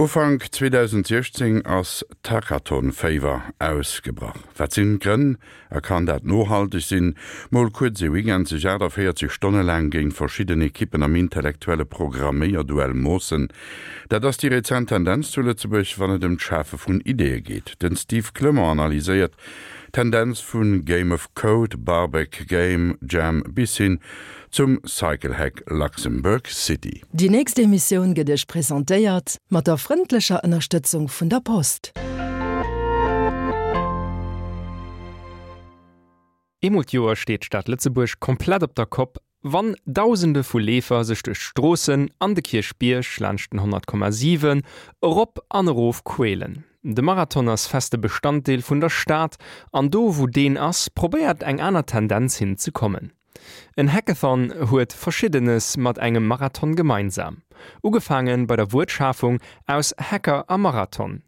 Ufank 2016 ass d'Hackathon-Féiwer ausgebrach. Wat sinn d'Grënn a kann dat nohalteg sinn? Mol kuerz ee Weekend sech 48 Stonne laang géint verschidden Ekippen am intellektuelle Programméierduell moossen, dat ass déi rezent Tendenz zu Lëtzebuerg, wann et ëm d'Schafe vun Ideeë geet. Den Steve Clement analyséiert d'Tendenz vu Game of Code, Barbeque Game Jam bis hin zum Cyclehack Luxembourg City. Déi nächst Emissioun gëtt Iech presentéiert mat der frëndlecher Ënnerstëtzung vun der Post. Eemol d'Joer steet d'Stad Lëtzebuerg komplett op der Kopp, wann Dausende vu Leefer sech duerch d'Stroossen an de Kierchbierg laanscht den 100,7 erop an erof quälen. De Marathon ass feste Bestanddeel vun der Stad an do wou deen ass, probéiert eng aner Tendenz hin ze kommen. En Hackathon huet Verschiddenes mat engem Marathon gemeinsam. Ugefaange bei der Wuertschafung aus Hacker a Marathon.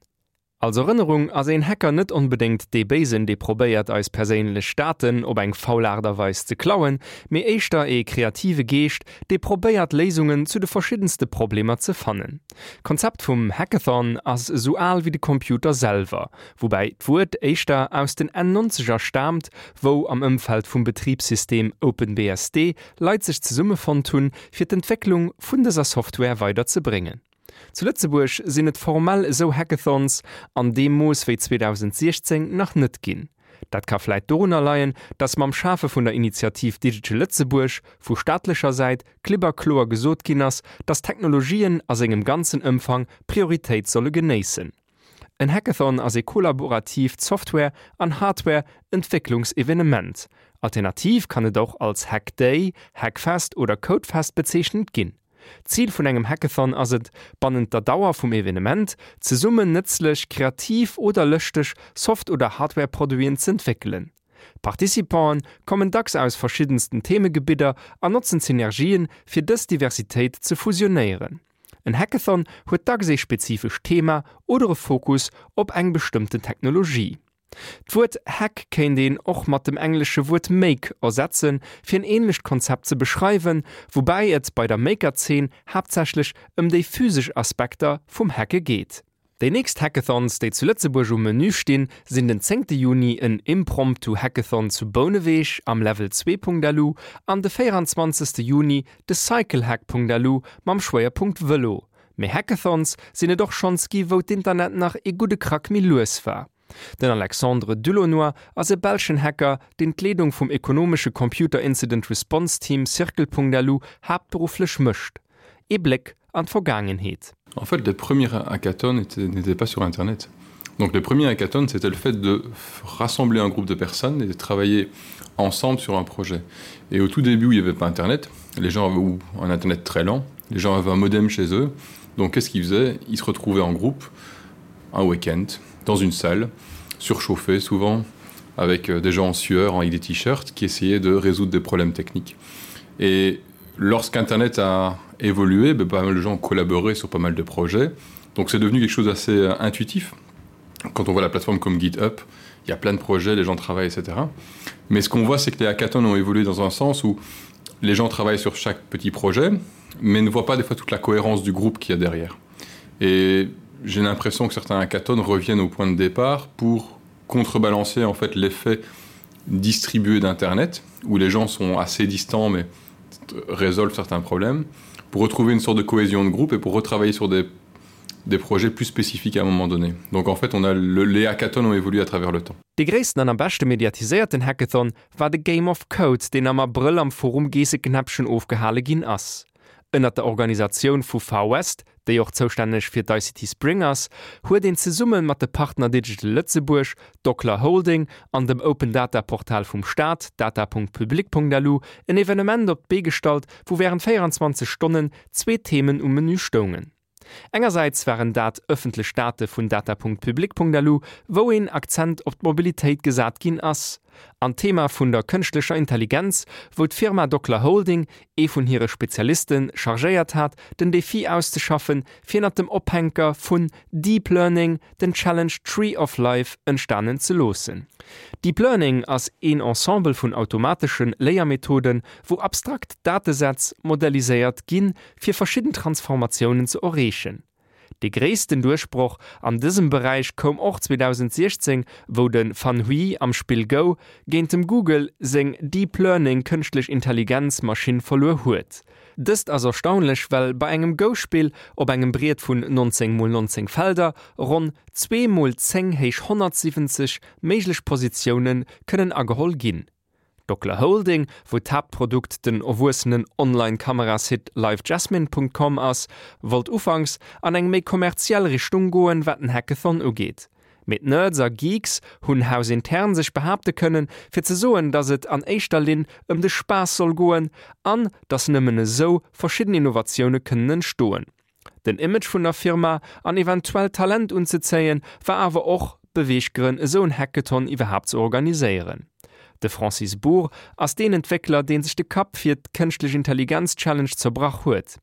Als Erënnerung ass een Hacker net onbedéngt dee Béisen, dee probéiert eis perséinlech Daten op eng faul Aart a Weis ze klauen, mee éischter ee kreative Geescht, dee probéiert Léisungen zu de verschiddenste Problemer ze fannen. D'Konzept vum Hackathon ass esou al wéi de Computer selwer, woubäi d'Wuert éischter aus den Enn Nonzeger staamt, wou am Ëmfeld vum Betribssystem OpenBSD Leit sech zesummefonnt hunn, fir d'Entwécklung vun dëser Software weider ze bréngen. Zu Lëtzebuerg sinn et formell esou Hackathons an deem Mooss wéi 2016 nach net ginn. Dat ka vläit dorunner leien, datt mam Schafe vun der Initiativ Digital Lëtzebuerg vu staatlecher Säit klipp a kloer gesot ginn ass, datt Technologien a sengem ganzen Ëmfang Prioritéit solle genéissen. En Hackathon ass ee kollaboratiivt Software an Hardware Entwécklungsevenement. Alternativ kann et och als Hackday, Hackfest oder Codefest bezeechent ginn. Zil vun engem Hackathon ass et, bannent der Dauer vum Evenement zesummen nëtzlech, kreativ oder lëschteg Soft oder Hardware-Produiten z'entwéckelen. D'Participanten kommen dacks aus verschiddensten Themegebidder an notzen d'Synergien, fir dës Diversitéit ze fusionéieren. En Hackathon huet dacks ee spezifescht Thema oder e Fokus op eng bestëmmten Technologie. D'Wuert Hack kéint een och mat dem englesche Wuert make ersetzen, fir en änlecht Konzept ze beschreiwen, woubäi et bei der Maker-Zeen haaptsächlech ëm déi physesch Aspekter vum Hacke geet. Déi nächst Hackathons, déi zu Lëtzebuerg um Menü stinn, sinn den zéngte Juni en Impromptu Hackathon zu Bouneweg am Level 2.lu an de 24. Juni de Cyclehack.lu mam Schwéierpunkt Vëlo. Mee Hackathons sinn et och schonns gi wou d'Internet nach ee gudde Krack méi lues war. Den Alexandre Dulaunoy ass e belschen Hacker, deen d'Leedung vum ekonomesche Computer Incident Response Team Circle.lu haaptberufflech mécht. Ee Bléck an d'Vergaangenheet. En fait, les premiers hackathons n'étaient pas sur Internet. Donc les premiers hackathons, c'était le fait de rassembler un groupe de personnes et de travailler ensemble sur un projet. Et au tout début où il n'y avait pas Internet, les gens avaient ou un Internet très lent, les gens avaient un modem chez eux. Donc qu'est-ce qu'ils faisaient Ils se retrouvaient en groupe un week-end dans une salle, surchauffée souvent, avec euh, des gens en sueur, avec des t-shirts, qui essayaient de résoudre des problèmes techniques. Et lorsqu'Internet a évolué, ben, pas mal de gens ont collaboré sur pas mal de projets. Donc c'est devenu quelque chose d'assez euh, intuitif. Quand on voit la plateforme comme GitHub, il y a plein de projets, les gens travaillent, etc. Mais ce qu'on voit, c'est que les hackathons ont évolué dans un sens où les gens travaillent sur chaque petit projet, mais ne voient pas des fois toute la cohérence du groupe qu'il y a derrière. Et j'ai l'impression que certains hackathons reviennent au point de départ pour contrebalancer en fait l'effet distribué d'internet où les gens sont assez distants mais résolvent certains problèmes pour retrouver une sorte de cohésion de groupe et pour retravailler sur des, des projets plus spécifiques à un moment donné. Donc en fait on a le, les hackathons ont évolué à travers le temps. Dee gréissten an am beschte mediatiséierten Hackathon war de Game of Code, deen am Abrëll am Forum Geesseknäppchen ofgehale ginn ass. Ënnert der Organisatioun vu Far West, déi och zoustänneg fir d'ICT Spring ass, huet een zesumme mat de Partner Digital Lëtzebuerg, Docler Holding an dem Open Data Portal vum Staat, data.public.lu, en Evenement op d'Bee gestallt, wou wärend 24 Stonnen zwee Themen um Menü stoungen. Engersäits waren dat ëffentlech Date vun data.public.lu, wou een Akzent op d'Mobilitéit gesat ginn ass, an d'Thema vun der kënschtlecher Intelligenz, wou d'Firma Docler Holding ee vun hire Spezialiste chargéiert hat, den Defi auszeschaffen, fir ënnert dem Ophänker vun Deep Learning den Challenge Tree of Life entstanen ze loossen. Deep Learning ass een Ensemble vun automatesche Léiermethoden, wou abstrakt Datesätz modelliséiert ginn, fir verschidden Transformatiounen ze erreechen. Dee gréissten Duerchbroch an dësem Beräich koum och 2016, wou de Fan Hui am Spill Go géint dem Google seng Deep Learning Kënschtlech Intelligenz Maschinn verluer huet. Dëst ass erstaunlech, well bei engem Go-Spill op engem Briet vun 19 mol 19 Felder ronn 2 mol 10 héich 170 méiglech Positioune kënnen ageholl ginn. D'Docla Holding, wou d'Haaptprodukt den erwuessenen Online-Kamerasite livejasmine.com ass, wollt ufanks an eng méi kommerziell Richtung goen, wat den Hackathon ugeet. Mee d'Nerds a Geeks hunn hausintern sech behaapte kënnen, fir ze soen, datt et an éischter Linn ëm de Spaass soll goen an datt nëmmen esou verschidden Innovatioune kënnen entstoen. Den Image vun der Firma an eventuell Talent unzezéien, war awer och Beweeggrënn esou en Hackathon iwwerhaapt ze organiséieren. De Francis Bour ass deen Entwéckler, deen sech de Kapp fir d'Kënschtlech Intelligenz Challenge zerbrach huet.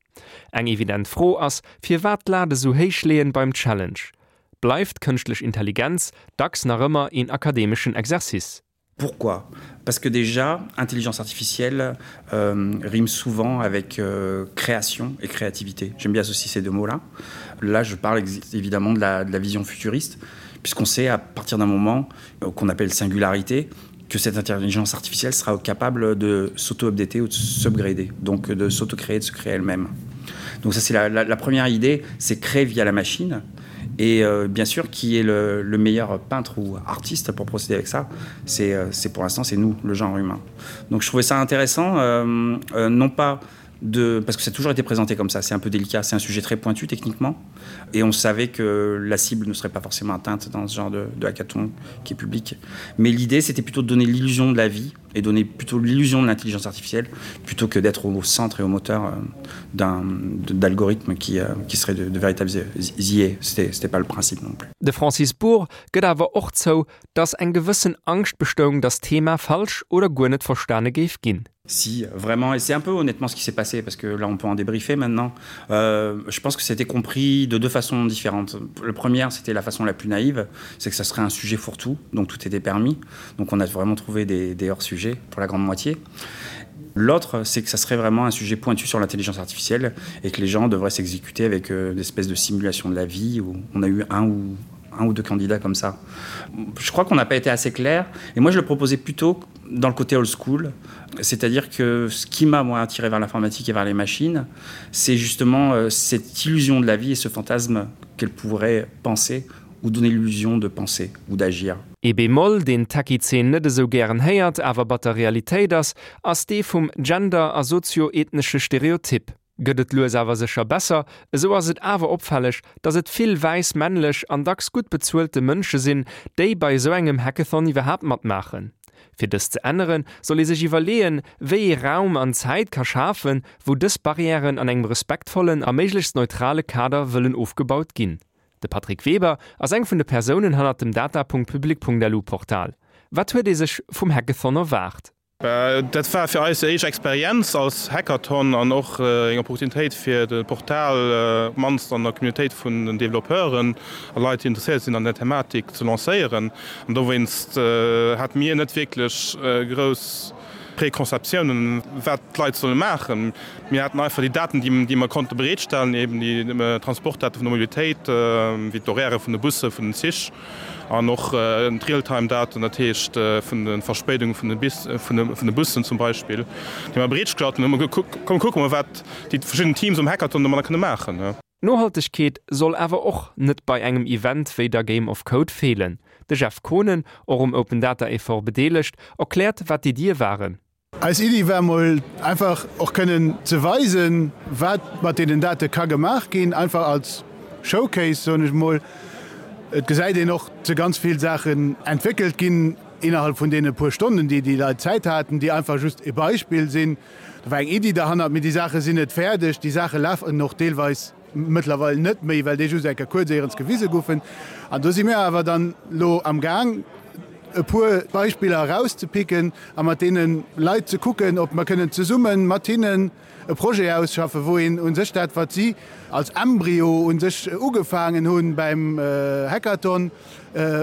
Eng evident Fro ass, firwat d'Lat esou héich leeën beim Challenge? Bleift d'Kënschtlech Intelligenz dacks nach ëmmer een akademeschen Exercice? Pourquoi Parce que déjà intelligence artificielle euh, rime souvent avec euh, création et créativité. J'aime bien associer ces deux mots là. Là je parle évidemment de la, de la vision futuriste puisqu'on sait à partir d'un moment euh, qu'on appelle singularité que cette intelligence artificielle sera capable de s'auto-updater ou de s'upgrader, donc de s'auto-créer, de se créer elle-même. Donc ça c'est la, la, la première idée, c'est créer via la machine et euh, bien sûr qui est le, le meilleur peintre ou artiste pour procéder avec ça c'est euh, pour l'instant c'est nous le genre humain donc je trouvais ça intéressant euh, euh, non pas de parce que ça a toujours été présenté comme ça c'est un peu délicat c'est un sujet très pointu techniquement et on savait que la cible ne serait pas forcément atteinte dans ce genre de, de hackathon qui est public mais l'idée c'était plutôt de donner l'illusion de la vie et donner plutôt l'illusion de l'intelligence artificielle plutôt que d'être au centre et au moteur euh, d'un d'algorithmes qui, euh, qui serait de, de véritables IA. C'était pas le principe non plus. De Francis Bour gëtt awer och zou, datt eng gewëssen Angscht bestoung, datt d'Thema falsch oder guer net verstane géif ginn. Si, vraiment, et c'est un peu honnêtement ce qui s'est passé, parce que là on peut en débriefer maintenant. Euh, je pense que c'était compris de deux façons différentes. Le premier, c'était la façon la plus naïve, c'est que ça serait un sujet fourre-tout, donc tout était permis. Donc on a vraiment trouvé des, des hors-sujets pour la grande moitié. L'autre, c'est que ça serait vraiment un sujet pointu sur l'intelligence artificielle et que les gens devraient s'exécuter avec euh, une espèce de simulation de la vie où on a eu un ou un ou deux candidats comme ça. Je crois qu'on n'a pas été assez clair et moi je le proposais plutôt dans le côté old school, c'est-à-dire que ce qui m'a moi attiré vers l'informatique et vers les machines, c'est justement euh, cette illusion de la vie et ce fantasme qu'elle pourrait penser ou donner l'illusion de penser ou d'agir. Ee Bémol, deen d'Techie-Zeen net esou gären héiert, awer batter Realitéit ass, ass dee vum Gender a sozio-ethnesche Stereotyp. Gëtt et lues awer sécher besser, esou ass et awer opfälleg, dass et vill wäiss männlech an dacks gutt bezuelte Mënsche sinn, déi bei esou engem Hackathon iwwerhaapt matmaachen. Fir dëst ze änneren, soll ee sech iwwerleeën, wéi ee Raum an Zäit ka schafen, wou dës Barrièren an engem respektvollen a méiglechst neutrale Kader wëllen ofgebaut ginn. De Patrick Weber ass eng vun de Persounen hannert dem data.public.lu Portal. Wat huet ee sech vum Hackathon erwaart? Dat war fir eis déi éischt Experienz als Hackathon an och eng Opportunitéit fir de Portal op d'mannst an der Communautéit vun den Developpeuren a Leit déi interesséiert sinn an der Thematik ze lancéieren. An dowéinst hate mir net wierklech grouss Preconceptiounen wat d'Leit solle maachen. Mir haten einfach déi Daten déi mer konnte bereetstellen, eben déi Transportdate vun der Mobilitéit, wéi d'Horairë vun de Busse, vun den Zich. An och d'Real-Time-Daten, dat heescht vun de Verspéidunge vun de Bussen zum Beispill, déi mer bereetgestallt hunn. Hu mer gekuckt, komm kucke mer, wat déi verschidden Teams um Hackathon domadder kënne maachen. Nohaltegkeet soll awer och net bei engem Event wéi der Game of Code feelen. De Jeff Kohnen, och um Open Data Effort bedeelegt, erkläert wat d'Iddie waren. Eis Iddi war mol einfach och kënnen ze weisen, wat mat deenen Date ka gemaach ginn, einfach als Showcase, soen ech mol. Et gesäit een och, si ganz vill Saachen entwéckelt ginn innerhalb vun deene puer Stonnen, déi déi Leit Zäit haten, déi einfach just e Beispill sinn. Do war eng Iddi derhannert, mee déi Saache sinn net fäerdeg, déi Saache lafen och deelweis mëttlerweil net méi, well déi just eng Kéier kuerz éierens gewise goufen. An do si mir awer dann elo am Gaang. e puer Beispiller erauszepicken a mat deene Leit ze kucken, ob mer kënnen zesumme mat hinnen e Projet ausschaffen, wou een u sech dat, wat si als Embryo u sech ugefaangen hu beim Hackathon,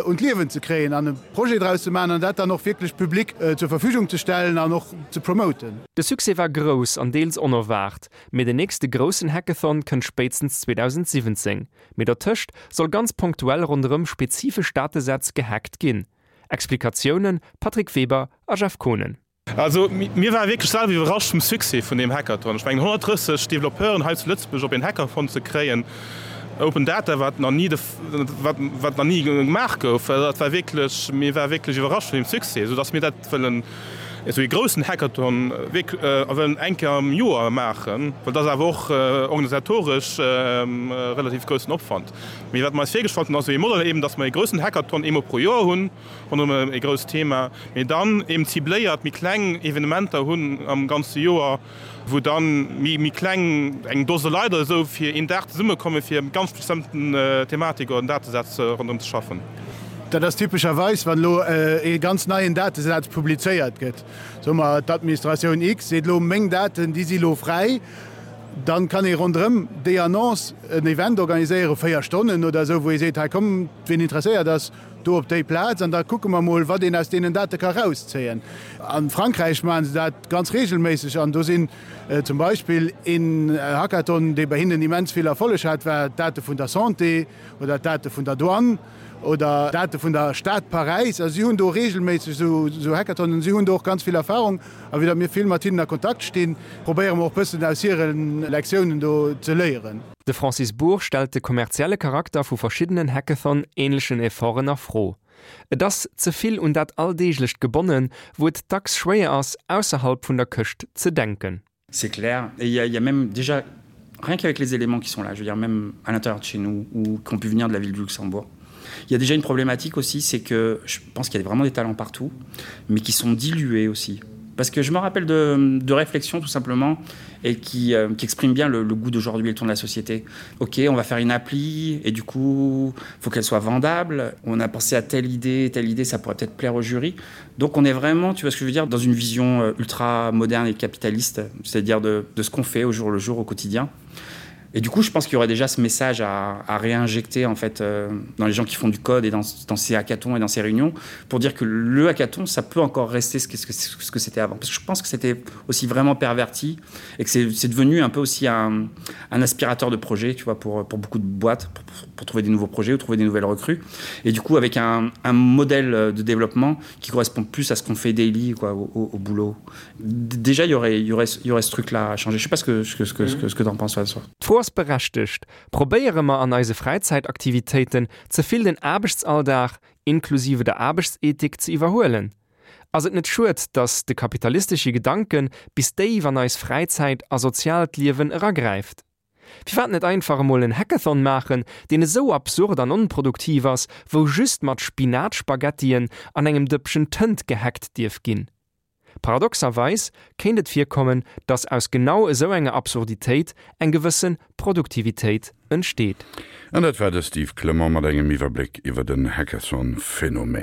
un d'Liewen ze kréien an e Projet draus ze maachen an dat dann och wierklech public zur Verfügung ze stellen an och ze promoten. De Succès war grouss an deels onerwaart, mee den nächste groussen Hackathon kënnt spéitstens 2017. Mee dertëscht soll ganz ponktuell ronderëm spezifesch Datesätz gehackt ginn. Explikatiounen, Patrick Weber a Jeff Kohnen. Also mir ware wierklech selwer iwwerrascht vum Succès vun deem Hackathon. Ech mengen 130 Developpeuren hei zu Lëtzebuerg op een Hackathon ze kréien, Open Data, wat nach ni de, wat, wat nach ni gemaach gouf, dat war wierklech, mir ware wierklech iwwerrascht vun deem Succès, soudass mir dat wëllen, esou ee groussen Hackathon wierk, wëllen eng Kéier am Joer maachen, well dat ass awer och organisatoresch relativ groussen Opwand. Mee wat mer eis virgestallt hunn, ass esou ee Modell eben, dass mer ee groussen Hackathon eemol pro Joer hunn, ronderëm e grousst Thema, mee dann eben cibléiert méi kleng Evenementer hunn am ganze Joer, wou dann méi kleng, eng Dose Leit oder esou, fir een Dag zesummekommen, fir eng ganz bestëmmten Thematik oder en Datesaz ronderëm ze schaffen. Dat ass typescherweis, wann elo ee ganz neien Datesaz publizéiert gëtt. Soe mer, d'Administratioun X seet elo, meng Daten, déi si elo fräi. Dann kann ee ronderëm déi Annonce en Event organiséieren, 4 Stonnen oder esou, wou ee seet, hei kommt, wien interesséiert ass, Do op déi Plaz, an da kucke mer mol, wat een aus deenen Date ka rauszéien. A Frankräich maache se dat ganz regelméisseg an do sinn zum Beispill een Hackathon, dee bei hinnen immens vill Erfolleg hat, war d'Date vun der Santé oder d'Date vun der Douane oder d'Date vun der Stad Paräis. Also si hunn do regelméisseg esou Hackathonen, si hunn do och ganz vill Erfahrung a vue datt mir vill mat hinnen a Kontakt stinn, probéiere mer och bëssen aus hire Lektiounen do ze léieren. De Francis Bour stellt de kommerzielle Charakter vu verschiddenen Hackathon-änlechen Efforten a Fro. Et ass ze vill un dat Alldeeglecht gebonnen, wou et dacks schwéier ass, ausserhalb vun der Këscht ze denken. C'est clair et il y a, il y a même déjà rien qu'avec les éléments qui sont là, je veux dire même à l'intérieur de chez nous ou qui ont pu venir de la ville du Luxembourg. Il y a déjà une problématique aussi, c'est que je pense qu'il y a vraiment des talents partout, mais qui sont dilués aussi. Parce que je me rappelle de, de réflexions tout simplement et qui, euh, qui exprime bien le, le goût d'aujourd'hui et le ton de la société. Ok, on va faire une appli et du coup faut qu'elle soit vendable. On a pensé à telle idée, telle idée, ça pourrait peut-être plaire au jury. Donc on est vraiment, tu vois ce que je veux dire, dans une vision euh, ultra moderne et capitaliste, c'est-à-dire de, de ce qu'on fait au jour le jour au quotidien. Et du coup, je pense qu'il y aurait déjà ce message à, à réinjecter en fait euh, dans les gens qui font du code et dans, dans ces hackathons et dans ces réunions pour dire que le hackathon, ça peut encore rester ce que, ce que, ce que c'était avant. Parce que je pense que c'était aussi vraiment perverti et que c'est devenu un peu aussi un, un aspirateur de projet tu vois, pour, pour beaucoup de boîtes, pour, pour, pour trouver des nouveaux projets ou trouver des nouvelles recrues. Et du coup, avec un, un modèle de développement qui correspond plus à ce qu'on fait daily quoi, au, au, au boulot. Déjà, il y aurait, il y aurait, il y aurait ce truc-là à changer. Je sais pas ce que, ce que, ce que, ce que, ce que tu en penses. D'Fro ass berechtegt, Probéiere mer an eise Fräizäitaktivitéiten ze vill den Aarbechtsalldag, inklusive der Aarbechtsethik, ze iwwerhuelen? Ass et net schued, datt de kapitalistesche Gedanke bis déif an eis Fräizäit a soziaalt Liewen eragräift? Firwat net einfach emol en Hackathon maachen, deen esou absurd an onproduktiv ass, wou just mat Spinatspaghettien an engem Dëppchen Tënt gehackt dierf ginn? Paradoxerweis kéint et virkommen, datt aus genau esou enger Absurditéit eng gewësse Produktivitéit entsteet. An dat war de Steve Clement mat engem Iwwerbléck iwwer den Hackathon-Phänomen.